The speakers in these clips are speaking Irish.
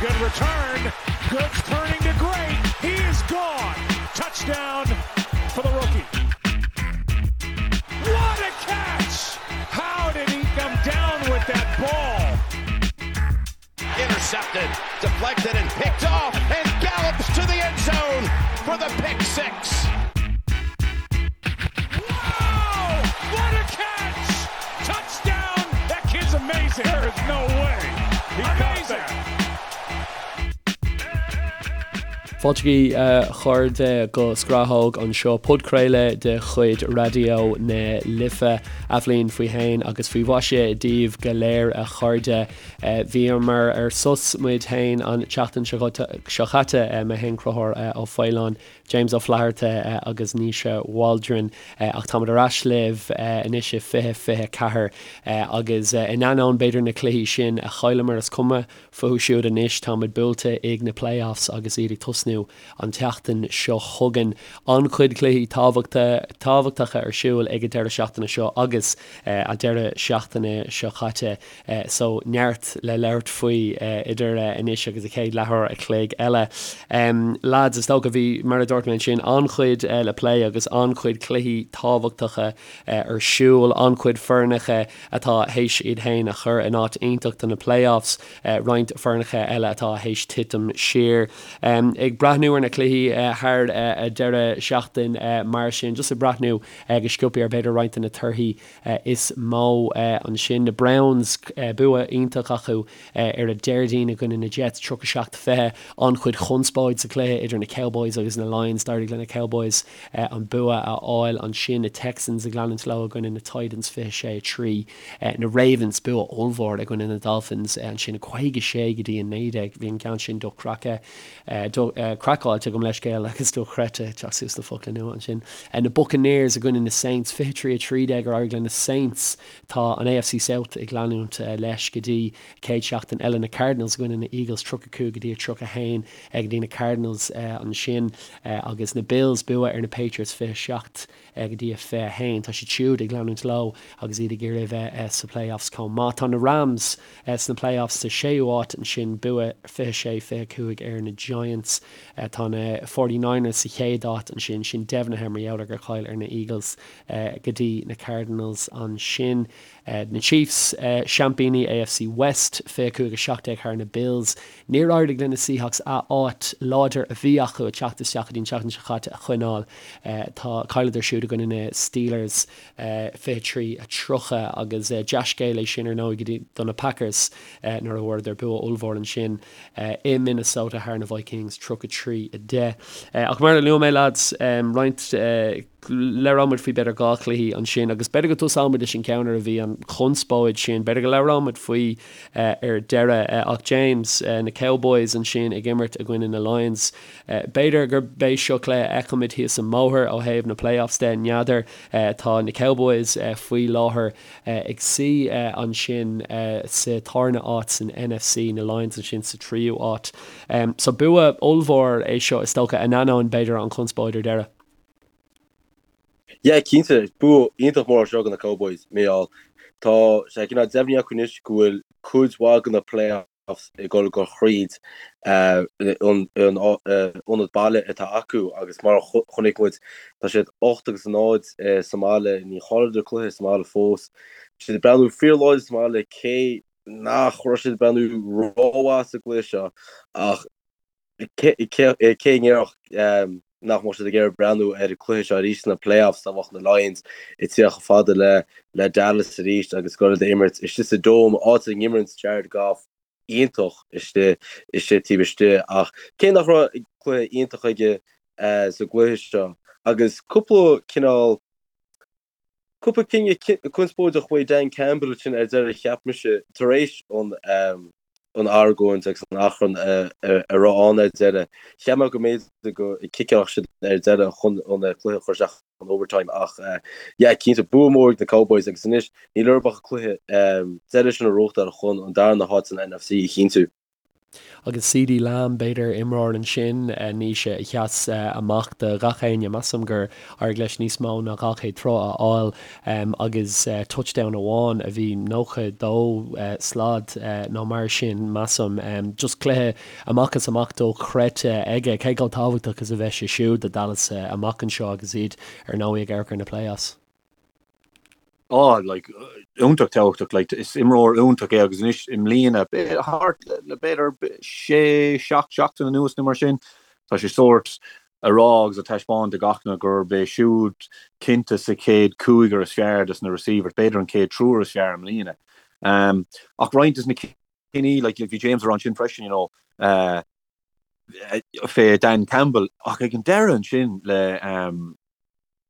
Good return. Good turning to great. He is gone. Touchdown for the rookie. What a catch! How did he come down with that ball? Intercepted, deflected, and picked off, and gallops to the end zone for the pick 6. Wow! What a catch! Touchdown! That kid's amazing. There is no way. He amazing. Fáilte a chairde go Scrathóg anseo, podchraoladh de chuid Raidió na Life. Athbhliain faoi shéan agus faoi mhaise daoibh go léir a chairde. Bhíomar ar sos muid féin an tseachtain seo chaite, mé féin Conchúr Ó Faoláin, James Ó Flatharta agus Naoise Waldron ach táimid ar ais libh anois i 2024 agus in ainneoin b'fhéidir na cluichí sin a chailleamar is cuma fúthu siúd anois, táimid buailte ag na playoffs agus iad ag tosnú an tseachtain seo chugainn. An-chuid cluichí tábhachtacha ar siúl ag an deireadh seachtaine seo agus an deireadh seachtaine seo caite. So neart le labhairt faoi idir anois agus an chéad leathuair a chloig eile. Lads, is dócha, bhí, mar a dúirt mé ansin, an-chuid le plé agus an-chuid cluichí tábhachtacha ar siúl, an-chuid foirneacha atá théis iad féin a chur in áit iontach do na playoffs, roinnt foirneacha eile atá théis titim siar. Ag breathnú ar na cluichí thar an deireadh seachtain mar sin, just ag breathnú go sciobtha ar b'fhéidir roinnt de na torthaí is mó ansin. Na Browns, bua iontach acu ar an Déardaoin i gcoinne na Jets, 37, 20. An-chuid chonspóid sa chluiche idir na Cowboys agus na Lions. D'éirigh le na Cowboys an bua a fháil ansin. Na Texans ag leanúint leo i gcoinne na Titans, 26, 3. Na Ravens, bua ollmhór i gcoinne na Dolphins ansin, 56 go dtí 19. Bhí an ceann sin dochreidte. Craiceáilte, gabh mo leithscéal agus dochreidte, teacht suas le focla nua ansin. Na Buccaneers i gcoinne na Saints, 23 13 ar éirigh le na Saints. Tá an AFC South ag leanúint leis go dtí chéad seachtain eile. Na Cardinals i gcoinne na Eagles, 35 go dtí 31 go dtí na Cardinals ansin. Agus na Bills, bua ar na Patriots, 27 go dtí a 21. Tá siad siúd ag leanúint leo agus iad ag iarraidh a bheith sa playoffs chomh maith. Tá na Rams sna playoffs sa séú háit ansin, bua 26, 25 ar na Giants. Tá na Forty Niners sa chéad áit ansin, sin deimhnithe mar gheall ar gur chaill ar na Eagles go dtí na Cardinals ansin. Na Chiefs, seaimpíní AFC West, 25, 17 thar na Bills. Níor éirigh le na Seahawks a áit láidir a bhí acu ag teacht isteach go dtí an tseachtain seo caite a choinneáil. Tá chailleadar siúd i gcoinne na Steelers 23, 30 agus dea-scéal é sin ar ndóigh go dtí do na Packers nuair a bhfuaireadar bua ollmhór ansin i Minnesota thar na Vikings 33, 10. Ach mar a luaigh mé lads, roinnt Labhróidh muid faoi b'fhéidir 2 chluichí ansin agus b'fhéidir go dtosóidh muid leis an ceann ar a bhí an chonspóid sin, b'fhéidir go labhróidh muid faoi ar deireadh. Ach James, na Cowboys ansin ag imirt i gcoinne na Lions. B'fhéidir gurb é seo cluiche a fheicfimid thíos an mbóthar ó thaobh na playoffs de, n'fheadar. Tá na Cowboys faoi láthair ag suí ansin sa tarna áit san NFC, na Lions ansin sa tríú áit. So bua ollmhór é seo is dócha, in ainneoin b'fhéidir an chonspóid ar deireadh. Yeah, cinnte, bua iontach mór seo do na Cowboys, Mícheál. Tá sé cineál deimhnithe acu anois go bhfuil cuid mhaith de na playoffs ag dul go thríd an ionad baile atá acu agus mar a chonaic muid, tá siad 8 agus 0 sa mbaile, ní chailleadar cluiche sa mbaile fós. Tá siad ag breathnú fíorláidir sa mbaile cé nach raibh siad ag breathnú rómhaith sa gcluiche seo ach Cé a ndéarfadh nach mbeadh siad ag iarraidh breathnú ar an cluiche seo arís sna playoffs dá mbeadh na Lions ag tíocht chomh fada le Dallas arís agus ag dul d'imirt istigh sa Dome, áit a n-imríonn Jared Goff iontach istigh istigh taobh istigh ach cé nach raibh cluiche iontach aige sa gcluiche seo agus cúpla cineál Cúpla cinneadh conspóideach uaidh Dan Campbell ansin ar deireadh cheap mise, tar éis an argóint agus an achrann a raibh ann ar deireadh. Cheap mé go mb'fhéidir go gciceálfadh siad ar deireadh chun an cluiche a chur isteach in overtime ach yeah cinnte bua mór ag na Cowboys agus anois níl orthu ach an cluiche deiridh sin a ghnóthachtáil chun an darna háit san NFC a chinntiú. Agus CeeDee Lamb, b'fhéidir, imreoir ansin, Naoise, a sheas amach do gach éinne. Measaim gur éirigh leis níos mó ná 200 troigh a fháil agus touchdown amháin a bhí 92 slad nó mar sin, measaim. Just cluiche amach is amach dochreidte aige. Cé chomh tábhachtach is a bheidh sé siúd do Dallas amach anseo agus iad ar ndóigh ag amharc ar na playoffs? Á, like, iontach tábhachtach, like, is imreoir iontach é agus anois i mbliana, thart le b'fhéidir sé, seacht seachtain anuas nó mar sin, tá sé sórt a rá agus a taispeáint do gach duine gurb é siúd cinnte sa chéad cúigear is fearr des na receivers, b'fhéidir an chéad triúr is fearr i mbliana. Um, ach roinnt des na cinní, like, bhí James a rá ansin freisin, you know, uh, fé Dan Campbell, ach ag an deireadh ansin le, um,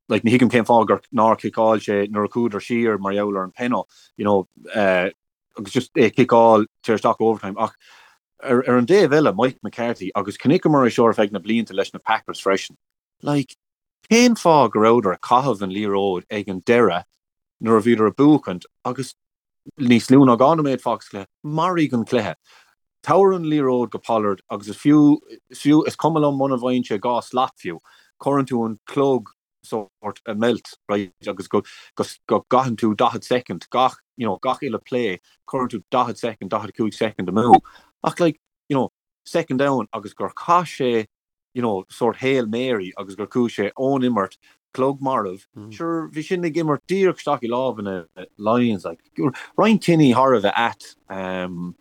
like ní thuigim cén fáth gur nár chiceáil sé nuair a chuadar siar mar gheall ar an penalty, you know, uh, agus just é ciceáil tar isteach overtime ach ar, ar an dtaobh eile Mike McCarthy agus chonaiceamar é seo ar feadh na blianta leis na Packers freisin. Like, cén fáth go rabhadar ag caitheamh an liathróid ag an deireadh nuair a bhíodar ag buachaint agus níos lú ná 2 nóiméad fágtha sa chluiche, maraigh an cluiche. Tabhair an liathróid go Pollard agus is fiú, is fiú, is cuma liom muna bhfaigheann sé 2 slat fiú, cuireann tú an clog sórt ag meilt, right, agus go, go, go gcaitheann tú 40 soicind, gach, you know, gach uile play, cuireann tú 40 soicind, 45 soicind amú. Ach like, you know, second down agus gur chaith sé you know, sórt Hail Mary agus gur chuaigh sé ón imirt, clog marbh, sure, bhí sin ag imirt díreach isteach i lámha na Lions, like, roinnt cinní thar a bheith ait, um,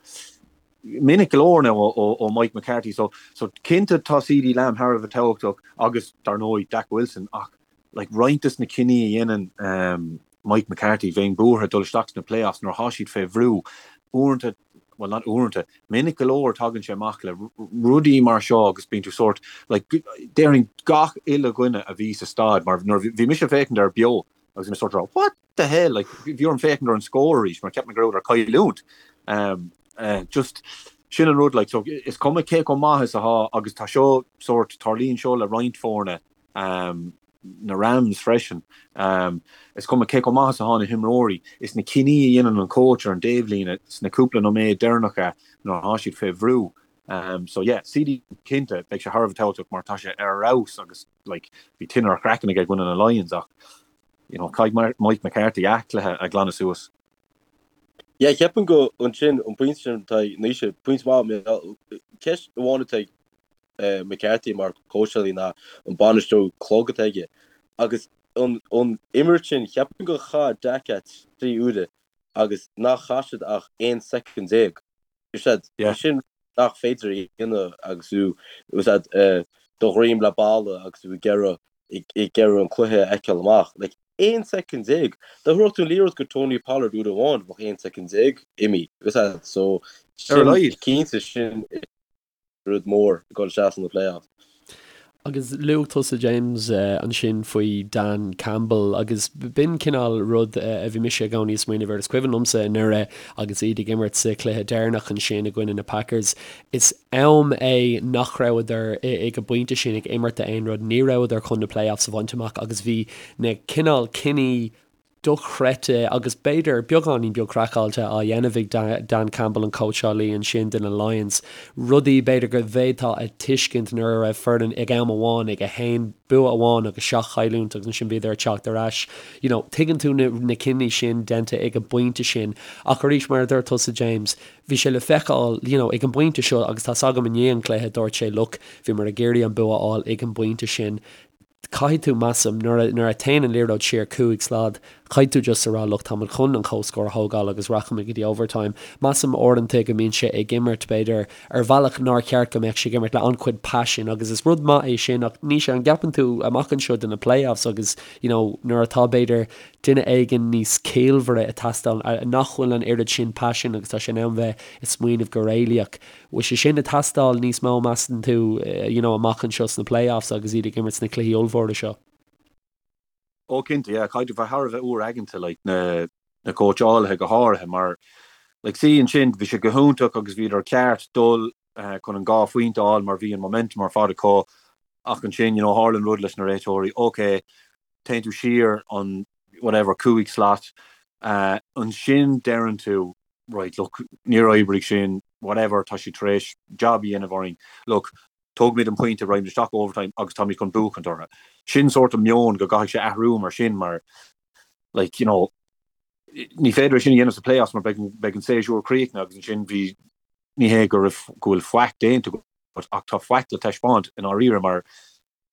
minic go leor now ó, ó Mike McCarthy, so, so cinnte tá CeeDee Lamb thar a bheith tábhachtach agus, dar ndóigh, Dak Wilson, ach, like, roinnt des na cinní a dhéanann, um, Mike McCarthy, bheinn buartha dul isteach sna playoffs nuair atá siad fé bhrú, uaireanta, bhuel not uaireanta, minic go leor tagann sé amach le rudaí mar seo agus bíonn tú sórt, like, déarfainn gach uile dhuine a bhí sa staid, mar nuair bhí mise ag féachaint air beo agus bhí mé sórt ag rá what the hell, like, bhí orm féachaint ar an scór arís mar cheap mé go rabhadar ag cailliúint. Um, uh, just, sin an rud, like, so is cuma cé chomh maith is atá agus tá seo sórt, tarlaíonn seo le roinnt foirne, um, na Rams freisin. Is cuma cé chomh maith is atá na himreoirí, is na cinní a dhéanann an coach ar an dtaobhlíne sna cúpla nóiméad deireanacha nuair atá siad fé bhrú. So yeah, CeeDee cinnte, beidh sé thar a bheith tábhachtach mar tá sé ar fheabhas agus like bhí tine ar a chraiceann aige i gcoinne na Lions ach you know caithfidh Mike McCarthy a chluiche a ghlanadh suas. Yeah, ceapaim go ansin an pointe sin atá ag Naoise, pointe maith, ceist amháin atá ag McCarthy mar cóitseálaí ná an bainistiú clog atá aige. Agus an imirt sin, cheapfainn gur chaith Dak é 3 uaire agus nach chaith siad ach 11 soicind. Is é sin nach féidir a dhéanamh agus tú do dhroim le balla agus tú ag iarraidh ag iarraidh an cluiche a fheiceáil amach. Like, 11 soicind. Dá dtabharfadh tú an liathróid go Tony Pollard uair amháin, bheadh 11 soicind imithe. So, sin cinnte sin rud mór ag dul isteach sna playoffs. Agus luaigh tusa James ansin faoi Dan Campbell agus b'in cineál rud a bhí mise i gcónaí ag smaoineamh air. Is cuimhin liomsa anuraidh agus iad ag imirt sa chluiche deireanach ansin i gcoinne na Packers. Is am é nach rabhadar ag an bpointe sin ag imirt d'aon rud, ní rabhadar chun na playoffs a bhaint amach agus bhí na cineál cinní dochreidte agus b'fhéidir beagáinín beag craiceáilte á dhéanamh ag Dan Campbell, an cóitseálaí ansin do na Lions. Rudaí b'fhéidir go bhféadfá a tuiscint nuair a raibh foireann ag am amháin ag 1 bua amháin agus 7 chailliúint agus ansin bhíodar ag teacht ar ais. You know, tuigeann tú na na cinní sin déanta ag an bpointe sin ach arís mar a dúirt tusa James, bhí sé le feiceáil you know, ag an bpointe seo agus tá's agam i ndiaidh an chluiche dúirt sé look, bhíomar ag iarraidh an bua a fháil ag an bpointe sin. Caithfidh tú, measaim, nuair a, nuair a téann an liathróid siar 5 slad, caithfidh tú just a rá look, táimid chun an comhscór a thógáil agus rachaimid go dtí overtime. Measaim uaireanta go mbíonn sé ag imirt, b'fhéidir, ar bhealach nár cheart go mbeadh sé ag imirt le an-chuid paisin agus is rud maith é sin ach ní sé, an gceapann tú amach anseo do na playoffs agus, you know, nuair atá, b'fhéidir, duine éigin níos ciallmhaire ag teastáil, nach bhfuil an oiread sin paisin agus tá sé in ann bheith ag smaoineamh go réalaíoch. Bhfuil sé sin ag teastáil níos mó, measann tú, you know, amach anseo sna playoffs agus iad ag imirt sna cluichí ollmhóra seo? Ó cinnte, yeah, caithfidh tú bheith thar a bheith úr-aigeanta, like, na, na cóitseálaithe go háirithe mar, like, see ansin, bhí sé go hiontach agus bhíodar ceart dul chun an dhá phointe a fháil mar bhí an momentum ar fad acu ach ansin, you know, tharla an rud leis na réiteoirí, ok, téann tú siar an, whatever, cúig slat, ansin deireann tú, right, look, níor oibrigh sin. whatever, tá siad tar éis jab a dhéanamh orainn, look, tógfaimid an pointe, raghaimid isteach overtime agus táimid chun buachaint orthu. Sin sórt an meon go gcaithfidh sé athrú mar sin mar like, you know, ní féidir é sin a dhéanamh sa playoffs mar beidh beidh an séasúr críochnaithe agus ansin bhí ní hé go raibh go bhfuil faic déanta agat ach tá faic le taispeáint i ndáiríre mar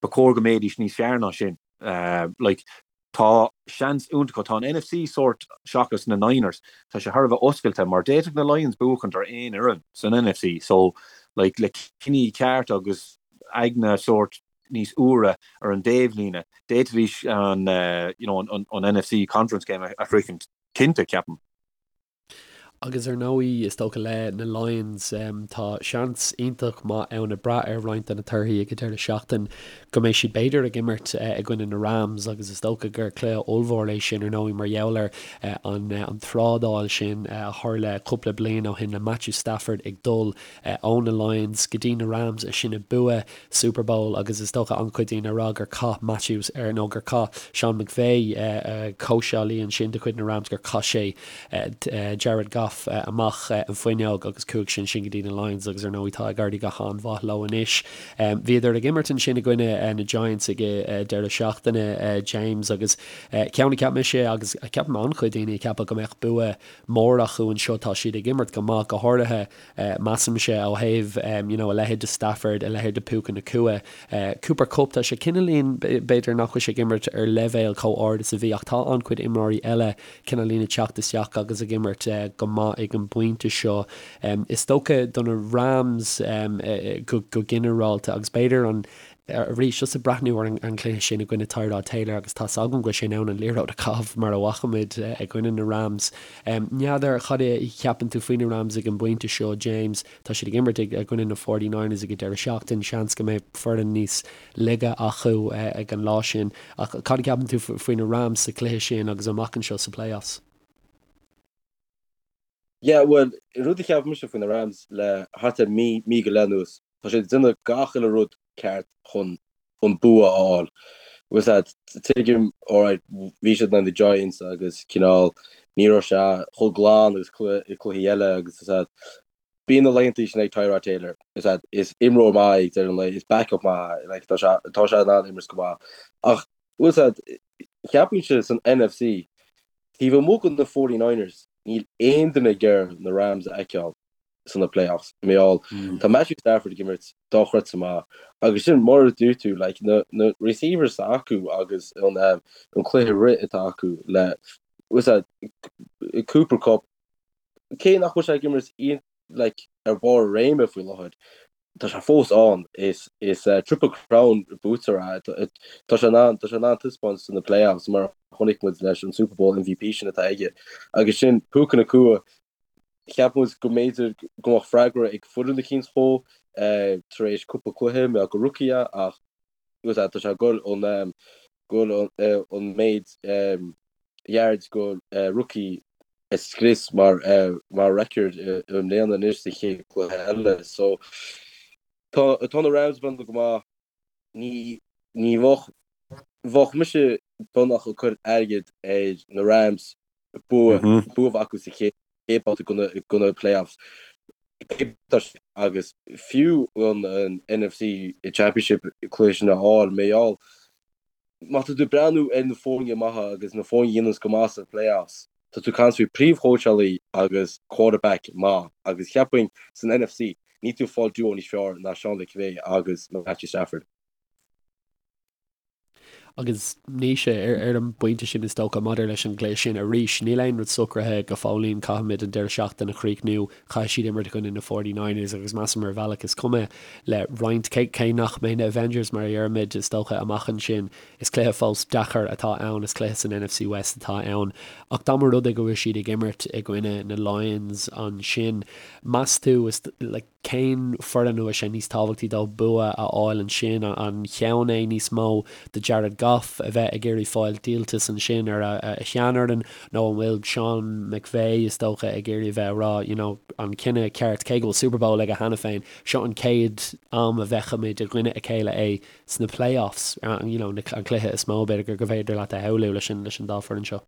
ba chóir go mbeidís níos fearr ná sin. Like, tá seans iontach acu. Tá an NFC sórt seachas na Niners, tá sé thar a bheith oscailte mar d'fhéadfadh na Lions buachaint ar aon fhoireann san NFC. So, like, le cinní ceart agus aigne sórt níos úire ar an dtaobhlíne, d'fhéadfaidís an, you know, an, an NFC Conference game a shroichint cinnte, ceapaim. Agus ar ndóigh, is dócha le na Lions, tá seans iontach maith ann ag brath ar roinnt de na torthaí ag an deireadh seachtain go mbeidh siad b'fhéidir ag imirt i gcoinne na Rams agus is dócha gur cluiche ollmhór é sin ar ndóigh mar gheall ar an an trádáil sin a tharla cúpla bliain ó shin le Matthew Stafford ag dul ó na Lions go dtí na Rams ansin ag bua Super Bowl agus is dócha an-chuid daoine ag rá gur chaith Matthews ar nó gur chaith Sean McVay, cóitseálaí ansin de chuid na Rams, gur chaith sé Jared Goff amach an fuinneog agus chuaigh sé ansin go dtí na Lions agus ar ndóigh tá ag éirí go han-mhaith leo anois. Bhíodar ag imirt ansin i gcoinne na Giants ag deireadh seachtaine, James, agus ceann a cheap mise agus ceapaim an-chuid daoine a cheapadh go mbeadh bua mór acu anseo, tá siad ag imirt go maith, go háirithe Measaimse ó thaobh you know a leithéid de Stafford, a leithéid de Puka Nacua, Cooper Kupp, tá sé cineáilín b'fhéidir nach bhfuil sé ag imirt ar leibhéal chomh ard is a bhí ach tá an-chuid imreoirí eile cineáilín ag teacht isteach agus ag imirt go maith ag an bpointe seo. Is dócha do na Rams go ginearálta agus b'fhéidir an Arís, just ag breathnú ar an gcluiche sin i gcoinne Tyrod Taylor agus tá's agam go bhfuil sé in ann an liathróid a chaitheamh mar a bhfaca muid i gcoinne na Rams. N'fheadar cad é a cheapann tú faoi na Rams ag an bpointe seo, James. Tá siad ag imirt i gcoinne na Forty Niners ag an deireadh seachtaine. Seans go mbeidh foireann níos laige acu ag an lá sin. Ach cad a cheapann tú faoi na Rams sa chluiche sin agus amach anseo sa playoffs? Yeah, bhuel, rud a cheap mise faoi na Rams le thart ar mí, mí go leith anuas, tá siad ag déanamh gach uile rud ceart chun an bua a fháil. Bhfuil a fhios agat, tuigim, alright, bhí siad in aghaidh na Giants agus cineál ní raibh sé chomh glan agus cluichí eile agus bhfuil a fhios agat, bíonn na laethanta sin ag Tyrod Taylor, bhfuil a fhios agat, is imreoir maith é ag deireadh an lae, is backup maith é, like, tá sé, tá sé in ann imirt go maith. Ach, bhfuil a fhios agat, cheapfainnse san NFC, Taobh amuigh de na Forty Niners, níl aon duine ag iarraidh na Rams a fheiceáil sna playoffs. Mar gheall, tá Matthew Stafford ag imirt dochreidte maith agus sin mar a dúirt tú, like, na, na receivers atá acu agus an, um, an cluiche rith atá acu le, bhfuil a fhios agat, Cooper Kupp, cé nach bhfuil sé ag imirt like, ar bharr a réime faoi láthair, tá sé fós ann. Is is Triple Crown buaiteoir é. Tá sé in ann tá sé in ann taispeáint sna playoffs mar a chonaic muid leis an Super Bowl MVP sin atá aige. Agus sin Puka Nacua, cheap muid go mb'fhéidir go mbeadh freagra ag foireann eicínt dhó tar éis cúpla cluiche, mar gur rookie é ach tá sé ag dul an go bhfuil an méid yards go rookie a scrios mar mar record i mbliana anois sa chéad cluiche eile. So tá tá na Rams ag breathnú go maith. Ní ní bheadh bheadh mise beagnach ag cur airgead ar na Rams bua bua a bheith acu sa chéad chéad babhta de na playoffs. Agus fiú an an NFC Championship cluiche sin a fháil, mar gheall má tá tú ag breathnú ar na foirne maithe agus na foirne a dhéananns go maith sna playoffs, tá tú ag caint faoi príomhchóitseálaí agus quarterback maith agus cheapfainn san NFC níl tú ag fáil duo níos fearr ná Sean McVay agus Matthew Stafford. Agus Naoise, ar an bpointe sin is dócha, maidir leis an gcluiche sin arís, níl aon rud socraithe go fóillín, caithfimid an deireadh seachtaine a chríochnú, caithfidh siad imirt i gcoinne na Forty Niners agus measaim ar bhealach is cuma le roinnt, cé nach mbeidh na Avengers mar a deirimid, is dócha, amach ansin, is cluiche fós deacair atá ann, is cluiche san NFC West atá ann. Ach dá mba rud é go bhfuil siad ag imirt i gcoinne na Lions ansin, meas tú, is like, Cén foireann a bhfuil sé níos tábhachtaí dóibh bua a fháil ansin? An ceann é níos mó do Jared Goff a bheith ag iarraidh fáil díoltas ansin ar a sheanfhoireann nó an bhfuil Sean McVay, is dócha, ag iarraidh a bheith ag rá, you know, an cinneadh ceart, cé go bhfuil Super Bowl aige cheana féin, seo an chéad am a bhfeicfimid i gcoinne a chéile é sna playoffs, you know, an cluiche is mó, b'fhéidir, gur féidir leat a shamhlú leis an dá foireann seo?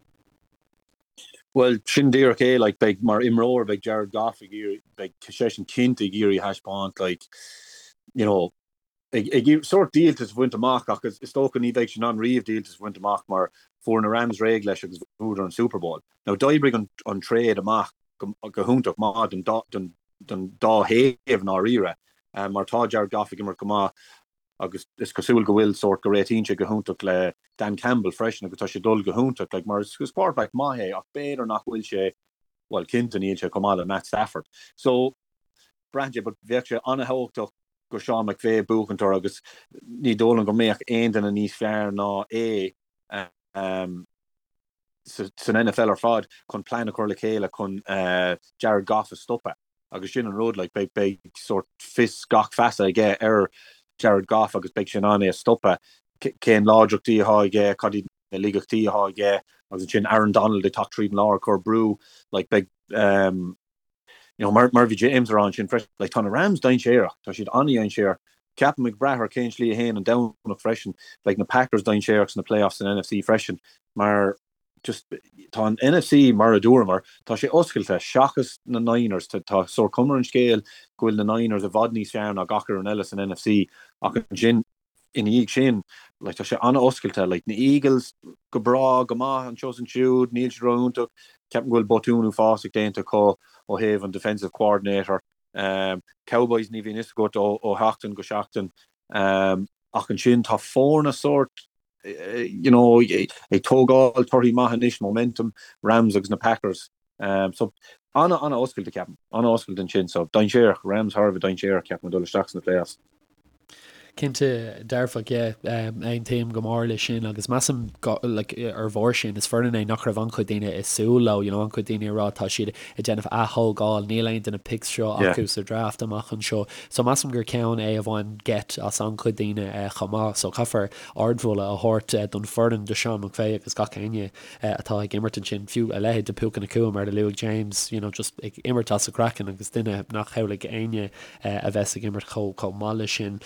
Bhuel, sin díreach é, like, beidh, mar imreoir, beidh Jared Goff ag iarraidh, beidh seisean cinnte ag iarraidh a thaispeáint, like, you know, ag, ag iarraidh sórt díoltas a bhaint amach ach is, is dócha ní bheidh sé in ann riamh díoltas a bhaint amach mar fuair na Rams réidh leis agus bhuadar an Super Bowl. Now, d'oibrigh an, an trade amach go, go hiontach maith don dá, don, don dá thaobh i ndáiríre, mar tá Jared Goff ag imirt go maith agus is cosúil go bhfuil sórt go réitíonn sé go hiontach le Dan Campbell freisin agus tá sé ag dul go hiontach like mar is quarterback maith é ach b'fhéidir nach bhfuil sé bhuel cinnte níl sé chomh maith le Matt Stafford. So braitheann sé but bheadh sé an-thábhachtach go Sean McVay buachaint orthu agus ní dóigh liom go mbeadh aon duine níos fearr ná é um, san NFL ar fad chun plean a chur le chéile chun uh, Jared Goff a stopadh. Agus sin an rud, like, beidh, beidh sórt fios gach feasa aige ar Jared Goff agus beidh sé in ann é a stopadh, cén láidreachtaí atá aige, cad iad na laigeachtaí atá aige, agus ansin Aaron Donald ag teacht tríd an lár ag cur brú, like, beidh, um, you know, mar, mar bhí James a rá ansin freisin, like, tá na Rams dainséarach, tá siad an-dainséarach. Ceapaim ag brath ar cén slí a théann an Domhnach freisin, beidh na Packers dainséarach sna playoffs san NFC freisin, mar just tá an NFC mar a dúramar, tá sé oscailte seachas na Niners, tá sórt cuma ar an scéal go bhfuil na Niners i bhfad níos fearr ná gach fhoireann eile san NFC ach ansin ina dhiaidh sin like tá sé an-oscailte, like na Eagles go breá, go maith anseo is ansiúd, níl siad ró-iontach, ceapaim go bhfuil botún uafásach déanta acu ó thaobh an defensive coordinator, um, Cowboys ní bhíonn fhios agat ó, ó sheachtain go seachtain um, ach ansin tá foirne sórt you know, ag tógáil torthaí maith anois, momentum, Rams agus na Packers. Um, so ana ana oscailte ceapaim, ana oscailte ansin, so dainséarach, Rams thar a bheith dainséarach ceapaim ag dul isteach sna playoffs. Cinnte dearfach, yeah, aontaím go mór leis sin agus measaim like, ar bharr sin is foireann é nach raibh an-chuid daoine ag súil leo, you know, an-chuid daoine ag rá tá siad ag déanamh ath-thógáil, níl aon de na picks seo acu sa draft amach anseo. So measaim gur ceann é a bhain geit as an-chuid daoine chomh maith. So caithfear ardmholadh a thabhairt don foireann, do Sean McVay agus gach éinne atá ag imirt ansin, fiú a leithéid de Puka Nacua mar a luaigh James, you know, just ag imirt as a craiceann agus duine nach shamhlaigh éinne a bheas ag imirt chomh chomh maith leis sin.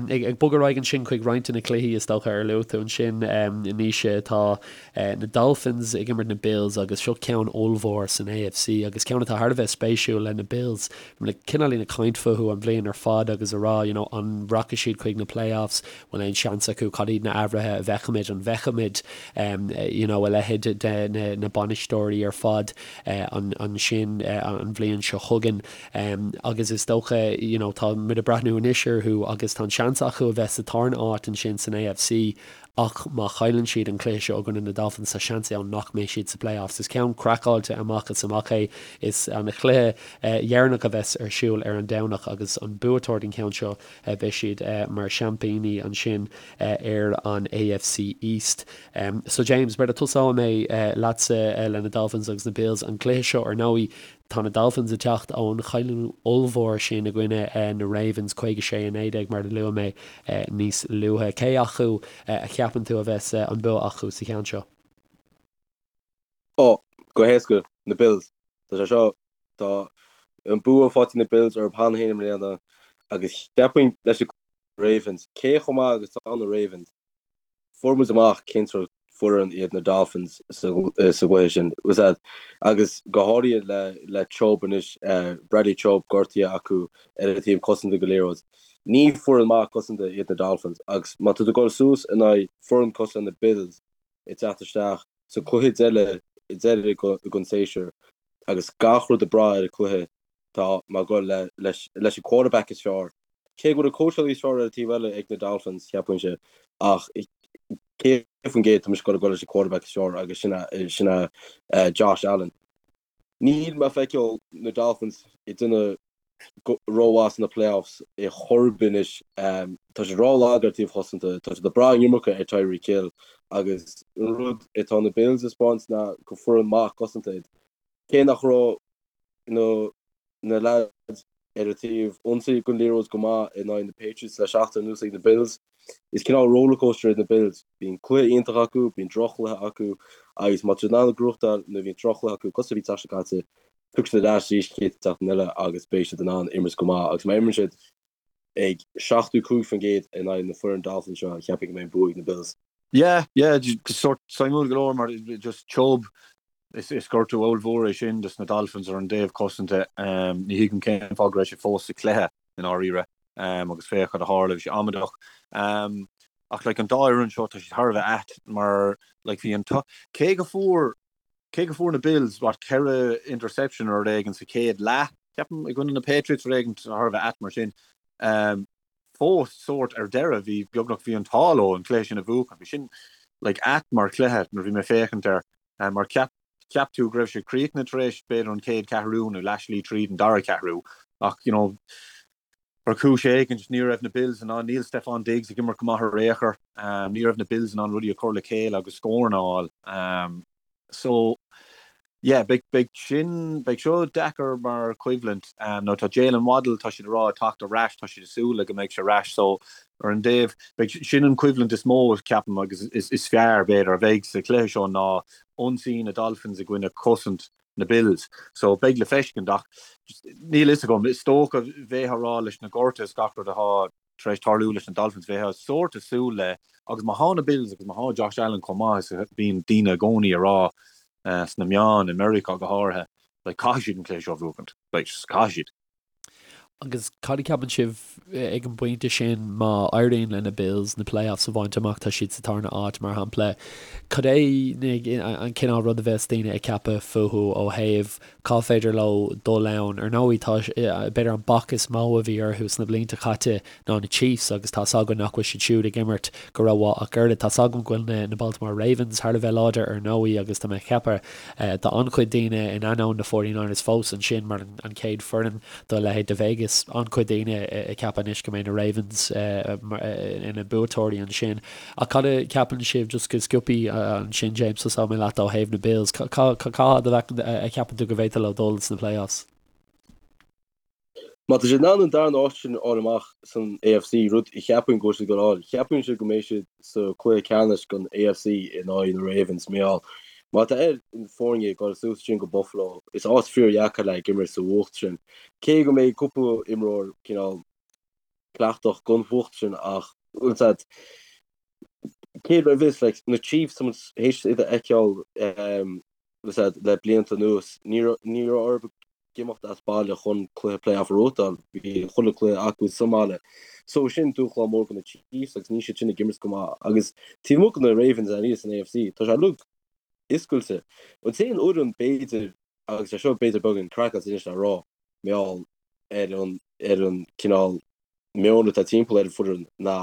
Ag bogadh ar aghaidh ansin chuig roinnt de na cluichí is dócha ar luaigh tú ansin, Naoise, tá na Dolphins ag imirt na Bills agus seo ceann ollmhór san AFC agus ceann atá thar a bheith spéisiúil le na Bills. Bhí muid cineáilín ag caint fúthu an bhliain ar fad agus a rá, you know, an rachaidh siad chuig na playoffs, bhfuil aon seans acu, cad iad na athruithe a bhfeicfimid, an bhfeicfimid, you know, a leithéid de na, na bainisteoirí ar fad ansin an bhliain seo chugainn. Agus is dócha, you know, tá muid ag breathnú anois orthu agus tá an seans acu a bheith sa tarna áit ansin san AFC Ach má chailleann siad an cluiche seo i gcoinne na Dolphins, tá seans ann nach mbeidh siad sa playoffs. Is ceann craiceáilte amach is amach é. Is an cluiche dheireanach a bheas ar siúl ar an Domhnach agus an buaiteoir den cheann seo, beidh siad mar seaimpíní ansin ar an AFC East. So James, b'fhéidir tosóidh mé leatsa le na Dolphins agus na Bills. An cluiche seo ar ndóigh, Tá na Dolphins ag teacht ón chailliúint ollmhór sin i gcoinne na Ravens, 56-19 mar a luaigh mé níos luaithe. Cé acu a cheapann tú a bheas an bua acu sa cheann seo? Ó, go héasca, na Bills. Tá sé seo, tá an bua faighte ag na Bills orthu cheana féin i mbliana agus cheapfainn leis na Ravens, cé chomh maith agus atá na Ravens, Fuair muid amach cén sórt foireann iad na Dolphins sa gcluiche sin. Agus go háirithe le Chubb anois, Bradley Chubb gortaithe acu ar an taobh cosanta den liathróid. Ní foireann maith cosanta iad na Dolphins agus má tá tú ag dul suas in aghaidh foireann cosúil le na Bills ag teacht isteach sa cluiche deiridh den séasúr agus gach rud ag brath ar an cluiche, Tá mé ag dul leis an quarterback is fearr. Cé go bhfuil an cóitseálaí is fearr ar an taobh eile ag na Dolphins, cheapfainnse, ach 100% tá mise ag dul leis an quarterback is fearr agus sin sin é Josh Allen. Níl mé ag feiceáil na Dolphins ag déanamh rómhaith sna playoffs ar chor ar bith anois. Tá siad rólag ar taobh chosanta, tá siad ag brath an iomarca ar Tyreek Hill agus an rud atá na Bills ag 'spáint ná gur foireann maith cosanta iad. Cé nach raibh na na leaids ar an taobh ionsaí den liathróid go maith in aghaidh na Patriots le seachtain anuas ag na Bills. Is cineál rollercoaster iad na Bills. Bíonn cluiche iontach acu, bíonn droch-chluiche acu agus má tá siad in ann gnóthachtáil nuair a bhíonn droch-chluiche acu, cosúil a bhí an tseachtain seo caite, tiocfaidh siad ar ais arís an chéad tseachtain eile agus beidh siad in ann imirt go maith agus má imríonn siad ag 75% in aghaidh na foireann Dolphins seo, cheapfainn go mbeidh an bua ag na Bills. Yeah, yeah, sórt suimiúil go leor mar just Chubb. Is gortú ollmhór é sin dos na Dolphins ar an dtaobh cosanta. Ní thuigim cén fáth go raibh sé fós sa chluiche i ndáiríre agus féach cad a tharla, bhí sé amaideach. Ach like an dá fhoireann seo tá siad thar a bheith ait mar like bhí an cé go fuair cé go fuair na Bills what 4 interception nó rud éigin sa chéad leath ceapaim i gcoinne na Patriots rud éigin thar a bheith ait mar sin. Fós sórt ar deireadh bhí beagnach bhí an t-ádh leo an cluiche sin a bhuachan. Bhí sin like ait mar chluiche nuair a bhí mé ag féachaint air mar cheap cheap tú go raibh sé críochnaithe tar éis b'fhéidir an chéad cheathrú nó leathshlí tríd an dara ceathrú ach you know ar chúis éigin ní raibh na Bills in ann níl Stefon Diggs ag imirt go maith ar aon chor ní raibh na Bills in ann rudaí a chur le chéile agus scóranna a fháil. So, yeah, beidh, beidh sin, beidh seo deacair mar choimhlint. Now tá Jaylen Waddle, tá siad ag rá, ag teacht ar ais, tá siad ag súil le go mbeidh sé ar ais. So, ar an dtaobh, beidh, sin an choimhlint is mó, ceapaim, agus is, is fearr, b'fhéidir, a bheidh sa chluiche seo ná ionsaí na Dolphins i gcoinne cosaint na Bills. So, beidh le feiscint ach níl fhios agam, is dócha, bheifeá ag rá leis na gortuithe is gach rud atá tar éis tarlú leis na Dolphins, bheifeá sórt ag súil le, agus má thá na Bills agus má thá Josh Allen chomh maith is a bhíonn daoine i gcónaí a rá sna meáin, i Meiriceá go háirithe, like caithfidh siad an cluiche seo a bhuachaint, like just caithfidh siad. Agus cad a cheapann sibh ag an bpointe sin má éiríonn le na Bills na playoffs a bhaint amach, tá siad sa tarna áit mar shampla, cad é an cineál rud a bheas daoine ag ceapadh fúthu ó thaobh Cá féidir leo dul ann? Ar ndóigh, tá, b'fhéidir an bac is mó a bhí orthu sna blianta caite ná na Chiefs agus tá's againn nach bhfuil siad siúd ag imirt go rómhaith ach oiread. Tá's agam go bhfuil na, na Baltimore Ravens thar a bheith láidir ar ndóigh agus tá mé ag ceapadh tá an-chuid daoine in ainneoin na 49ers fós ansin mar an chéad foireann do leithéid de Vegas, an-chuid daoine ag ceapadh anois go mbeidh na Ravens ina mbuaiteoirí ansin. Ach cad a cheapann sibh, just go sciobtha ansin James, tosóidh mé leat ó thaobh na Bills, cá fhad a cheapann tú go bhféadfadh leo dul sna playoffs? Má tá siad in ann an darna áit sin a fháil amach san AFC, rud a cheapaim go bhfuil siad ag dul a fháil, cheapfainnse go mbeidh siad sa chluiche ceannais den AFC in aghaidh na Ravens, mar gheall má tá ar na foirne ag dul suas ansin go Buffalo, is áit fíordheacair le ag imirt sa bhfuacht sin. Cé go mbeidh cúpla imreoir cineál cleachtach don bhfuacht sin ach bhfuil a fhios agat cé raibh fhios like na Chiefs tá muid théis iad a fheiceáil bhfuil a fhios agat le blianta anuas ní raibh ní raibh orthu imeacht as baile chun cluiche playoff a bhuachtáil bhí chuile cluiche acu sa mbaile so sin dúshlán mór do na Chiefs agus níl siad sin ag imirt go maith agus taobh amuigh de na Ravens aníos san AFC tá sé uilig oscailte an t-aon fhoireann b'fhéidir agus é seo b'fhéidir beagán craiceáilte anois le rá mar gheall ar an ar an cineál meon atá timpeall ar an foireann ná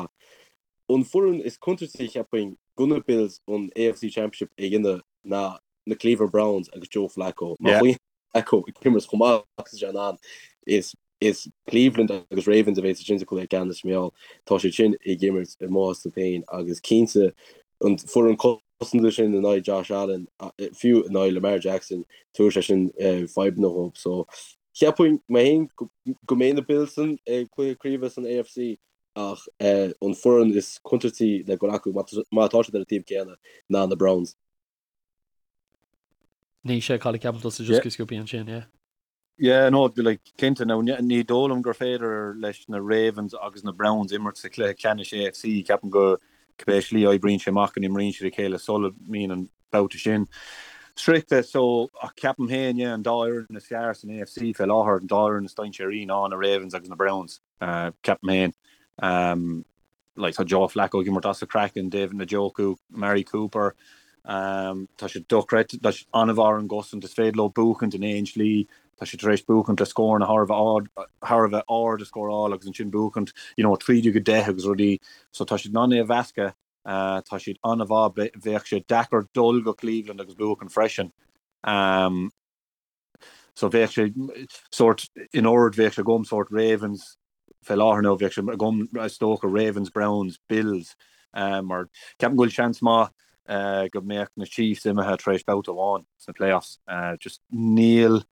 an foireann is contúirtí cheapfainn do na Bills an AFC Championship a dhéanamh ná na Cleveland Browns agus Joe Flacco. Má bhíonn Flacco ag imirt chomh maith agus is é in ann is is Cleveland agus Ravens a bheas ansin sa chluiche ceannais mar gheall tá siad sin ag imirt ar maitheas leo féin agus cinnte an foireann cosanta sin in aghaidh Josh Allen, fiú in aghaidh Lamar Jackson, tabharfaidh sé sin fadhbanna dhóibh. So, cheapfainn mé féin go mbeidh na Bills san cluiche craoibhe san AFC ach an foireann is contúirtí le dul acu má tá siad ar an taobh céanna ná na Browns. Naoise, cad a cheapann tusa just go sciobtha ansin, yeah? Yeah, no, like, cinnte, now, ní dóigh liom gur féidir leis na Ravens agus na Browns imirt sa chluiche ceannais AFC, ceapaim go cibé slí a oibríonn sé amach go n-imríonn siad a chéile sula mbíonn an babhta sin sroichte, so, ach ceapaim féin, yeah, an dá fhoireann is fearr san AFC fé láthair, an dá fhoireann is dainséaraí ná na Ravens agus na Browns. Ceapaim féin. Like, tá Joe Flacco ag imirt as a chraiceann, David Njoku, Amari Cooper, tá siad dochreidte, tá siad an-mhaith ar an gcosaint, is féidir leo buachaint in aon slí, tá siad tar éis buachaint le scóranna thar a bheith ard, thar a bheith ard a scóráil agus ansin buachaint, you know, 13-10 agus rudaí, so tá siad in ann é a mheascadh, tá siad an-mhaith, bheadh sé deacair dul go Cleveland agus buachaint freisin. So bheadh sé sórt, in ord bheadh sé agam sórt Ravens fé láthair nó bheadh sé agam is dócha Ravens, Browns, Bills mar ceapaim go bhfuil seans maith go mbeadh na Chiefs imithe tar éis babhta amháin sna playoffs. Just níl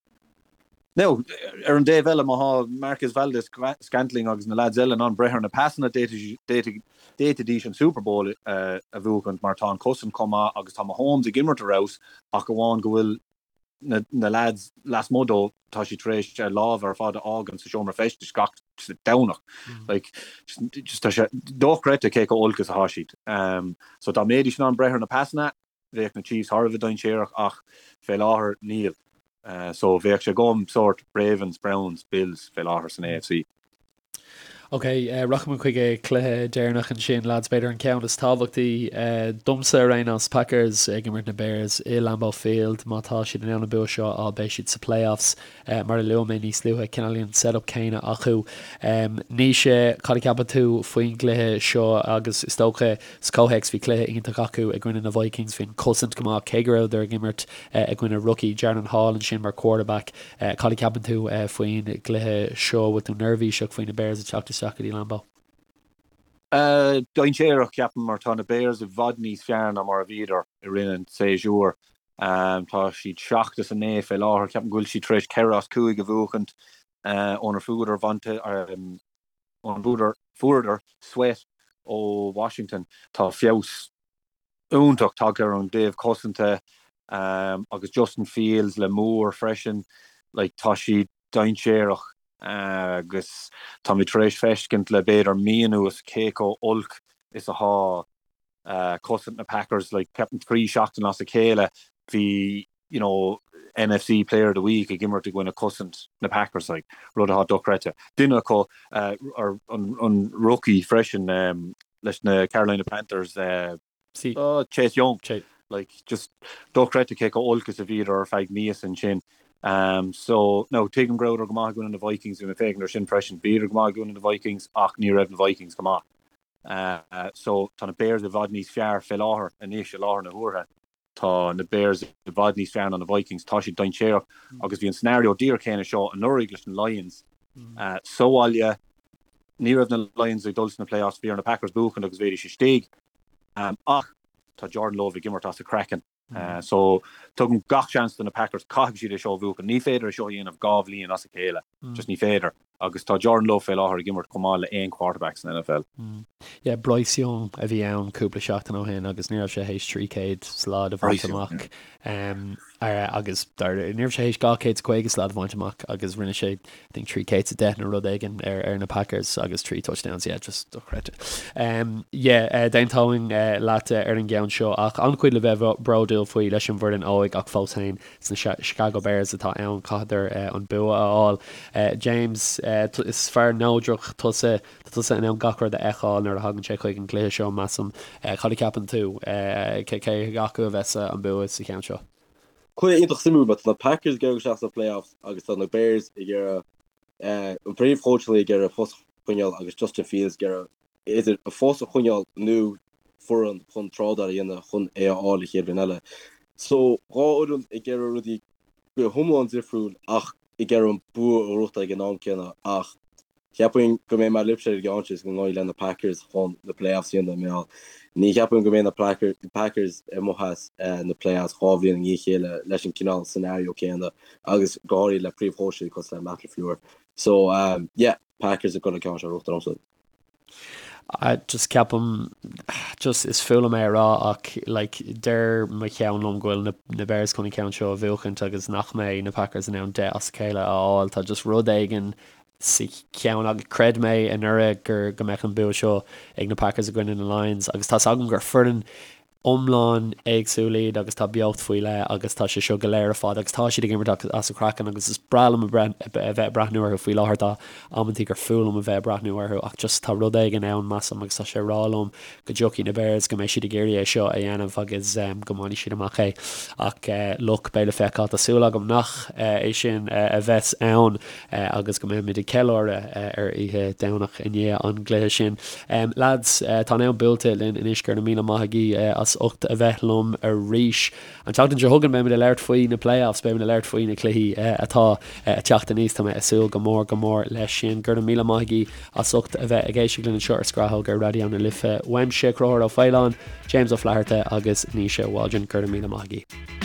Now, ar an dtaobh eile má thá Marquez Valdes-Scantling agus na lads eile in ann breith ar na pasanna d'fhéadfaidís an Super Bowl a bhuachaint mar tá an cosaint chomh maith agus tá Mahomes ag imirt ar fheabhas ach amháin go bhfuil na na lads lasmuigh dó, tá siad tar éis a lámha ar fad a fhágaint sa seomra feistis gach Domhnach. Like, just tá sé dochreidte cé chomh olc is atá siad. So dá mbeidís in ann breith ar na pasanna, bheadh na Chiefs thar a bheith dainséarach ach fé láthair níl. So bheadh sé agam sórt Ravens, Browns, Bills fé láthair san AFC. Ok, rachaidh muid chuig an cluiche deireanach ansin, lads, b'fhéidir an ceann is tábhachtaí domsa ar aon nós, Packers ag imirt na Bears i Lambeau Field. Má tá siad in ann an bua seo a fháil beidh siad sa playoffs. Mar a luaigh mé níos luaithe, cineáilín an setup céanna acu. Naoise, cad a cheapann tú faoin gcluiche seo agus is dócha Sa chomhthéacs, bhí cluiche iontach acu i gcoinne na Vikings, bhí an cosaint go maith cé go rabhadar ag imirt i gcoinne rookie Jaren Hall ansin mar quarterback. Cad a cheapann tú faoin gcluiche seo? Bhfuil tú neirbhíseach faoi na Bears ag teacht isteach go dtí Lambeau? Dainséarach, ceapaim, mar tá na Bears i bhfad níos fearr ná mar a bhíodar i rith an tséasúir. Tá siad 7 is 9 fé láthair. Ceapaim go bhfuil siad tar éis 4 as 5 a bhuachaint ónar fuaireadar ónar fuaireadar sweat ó Washington. Tá feabhas iontach tagtha ar an dtaobh cosanta agus Justin Fields le Moore freisin. Like, tá siad dainséarach agus táimid tar éis feiscint le b'fhéidir mí anuas cé chomh olc is atá cosaint na Packers. Like, ceapaim 3 seachtain as a chéile bhí you know, NFC Player of the Week ag imirt i gcoinne cosaint na Packers, like, rud atá dochreidte. Duine acu, an rookie freisin leis na Carolina Panthers, Chase Young, like, just dochreidte cé chomh olc is a bhíodar ar feadh míosa ansin. So, now, tuigim go rabhadar go maith i gcoinne na Vikings, bhí mé ag féachaint air sin freisin, bhíodar go maith i gcoinne na Vikings ach ní raibh na Vikings go maith. So, tá na Bears i bhfad níos fearr fé láthair anois, i láthair na huaire. Tá na Bears i bhfad níos fearr ná na Vikings, tá siad dainséarach agus bhí an scenario díreach céanna seo anuraidh leis na Lions sa bhaile. Ní raibh na Lions ag dul sna playoffs, bhí ar na Packers buachan agus bheidís istigh ach tá Jordan Love ag imirt as a chraiceann. So tugaim gach seans do na Packers, caithfidh siad é seo a bhuachan. Ní féidir é seo a dhéanamh 2 bhliain as a chéile, just ní féidir. Agus tá Jordan Love fé láthair ag imirt chomh maith le aon quarterback san NFL. Yeah, Bryce Young a bhí ann cúpla seachtain ó shin agus ní raibh sé théis 300 slad a bhaint amach. Agus ní raibh sé théis 250 slad a bhaint amach agus rinne sé I think 310 nó rud éigin ar ar na Packers agus 3 touchdowns, yeah, just dochreidte. Yeah, d'aontóinn leat ar an gceann seo ach an-chuid le bheith bródúil faoi leis an bhfoireann óig ach fós féin Sna Chicago Bears atá ann, chaitheadar an bua a fháil. James, is fear neodrach tusa, tá tusa in ann gach rud a fheiceáil nuair a thagann sé chuig an gcluiche seo, measaim. Cad a cheapann tú? Cé acu a bheas an bua sa cheann seo? Cluiche iontach suimiúil, mar tá na Packers ag iarraidh isteach sna playoffs agus tá na Bears ag iarraidh an príomhchóitseálaí ag iarraidh a phost a choinneáil agus Justin Fields ag iarraidh idir a phost a choinneáil nó foireann chun trádáil a dhéanamh chun é a fháil an chéad bhliain eile. So, 2 fhoireann ag iarraidh rudaí go hiomlán difriúil ach ag iarraidh an bua a ghnóthachtáil ag an am céanna ach cheapfainn go mbeidh mé libhse ar an gceann seo is go ngabhfaidh le na Packers chun na playoffs a dhéanamh mar ní cheapaim go mbeidh na Packers amuigh as na playoffs 2 bhliain i ndiaidh a chéile leis an cineál scenario céanna agus go háirithe le príomhchóitseálaí cosúil le Matt LaFleur. So, yeah. Packers ag dul an ceann seo a ghnóthachtáil domsa. Just ceapaim, just is fuath liom é a rá ach like deir mo cheann liom go bhfuil na na Bears chun an ceann seo a bhuachaint agus nach mbeidh na Packers in ann 10 as a chéile a fháil. Tá just rud éigin sa cheann agus chreid mé anuraidh gur go mbeadh an bua seo ag na Packers i gcoinne na Lions agus tá's agam gur foireann iomlán éagsúil iad agus tá beocht faoi leith agus tá sé seo go léir ar fad agus tá siad ag imirt as a craiceann agus is breá liom a bheith ag breathnú orthu faoi láthair. Tá amantaí gur fuath liom a bheith ag breathnú orthu ach just tá rud éigin ann, measaim, agus tá sé ag rá liom go dtiocfaidh na Bears, go mbeidh siad ag iarraidh é seo a dhéanamh agus go mbainfidh siad amach é. Ach look, beidh le feiceáil. Tá súil agam nach é sin a bheas ann. agus go mbeimid ag ceiliúradh ar oíche Domhnach i ndiaidh an gcluiche sin. Lads, tá an am buailte linn anois, go raibh míle maith agaibh as ucht a bheith liom arís. An tseachtain seo chugainn beimid ag labhairt faoi na playoffs, beimid ag labhairt faoi na cluichí atá ag teacht aníos, tá mé ag súil go mór go mór leis sin. Go raibh míle maith agaibh as ucht a bheith ag éisteacht linn anseo ar Scrathóg ar Raidió na Life. Uaimse, Conchúr Ó Faoláin, James Ó Flatharta agus Naoise Waldron, go raibh míle maith agaibh.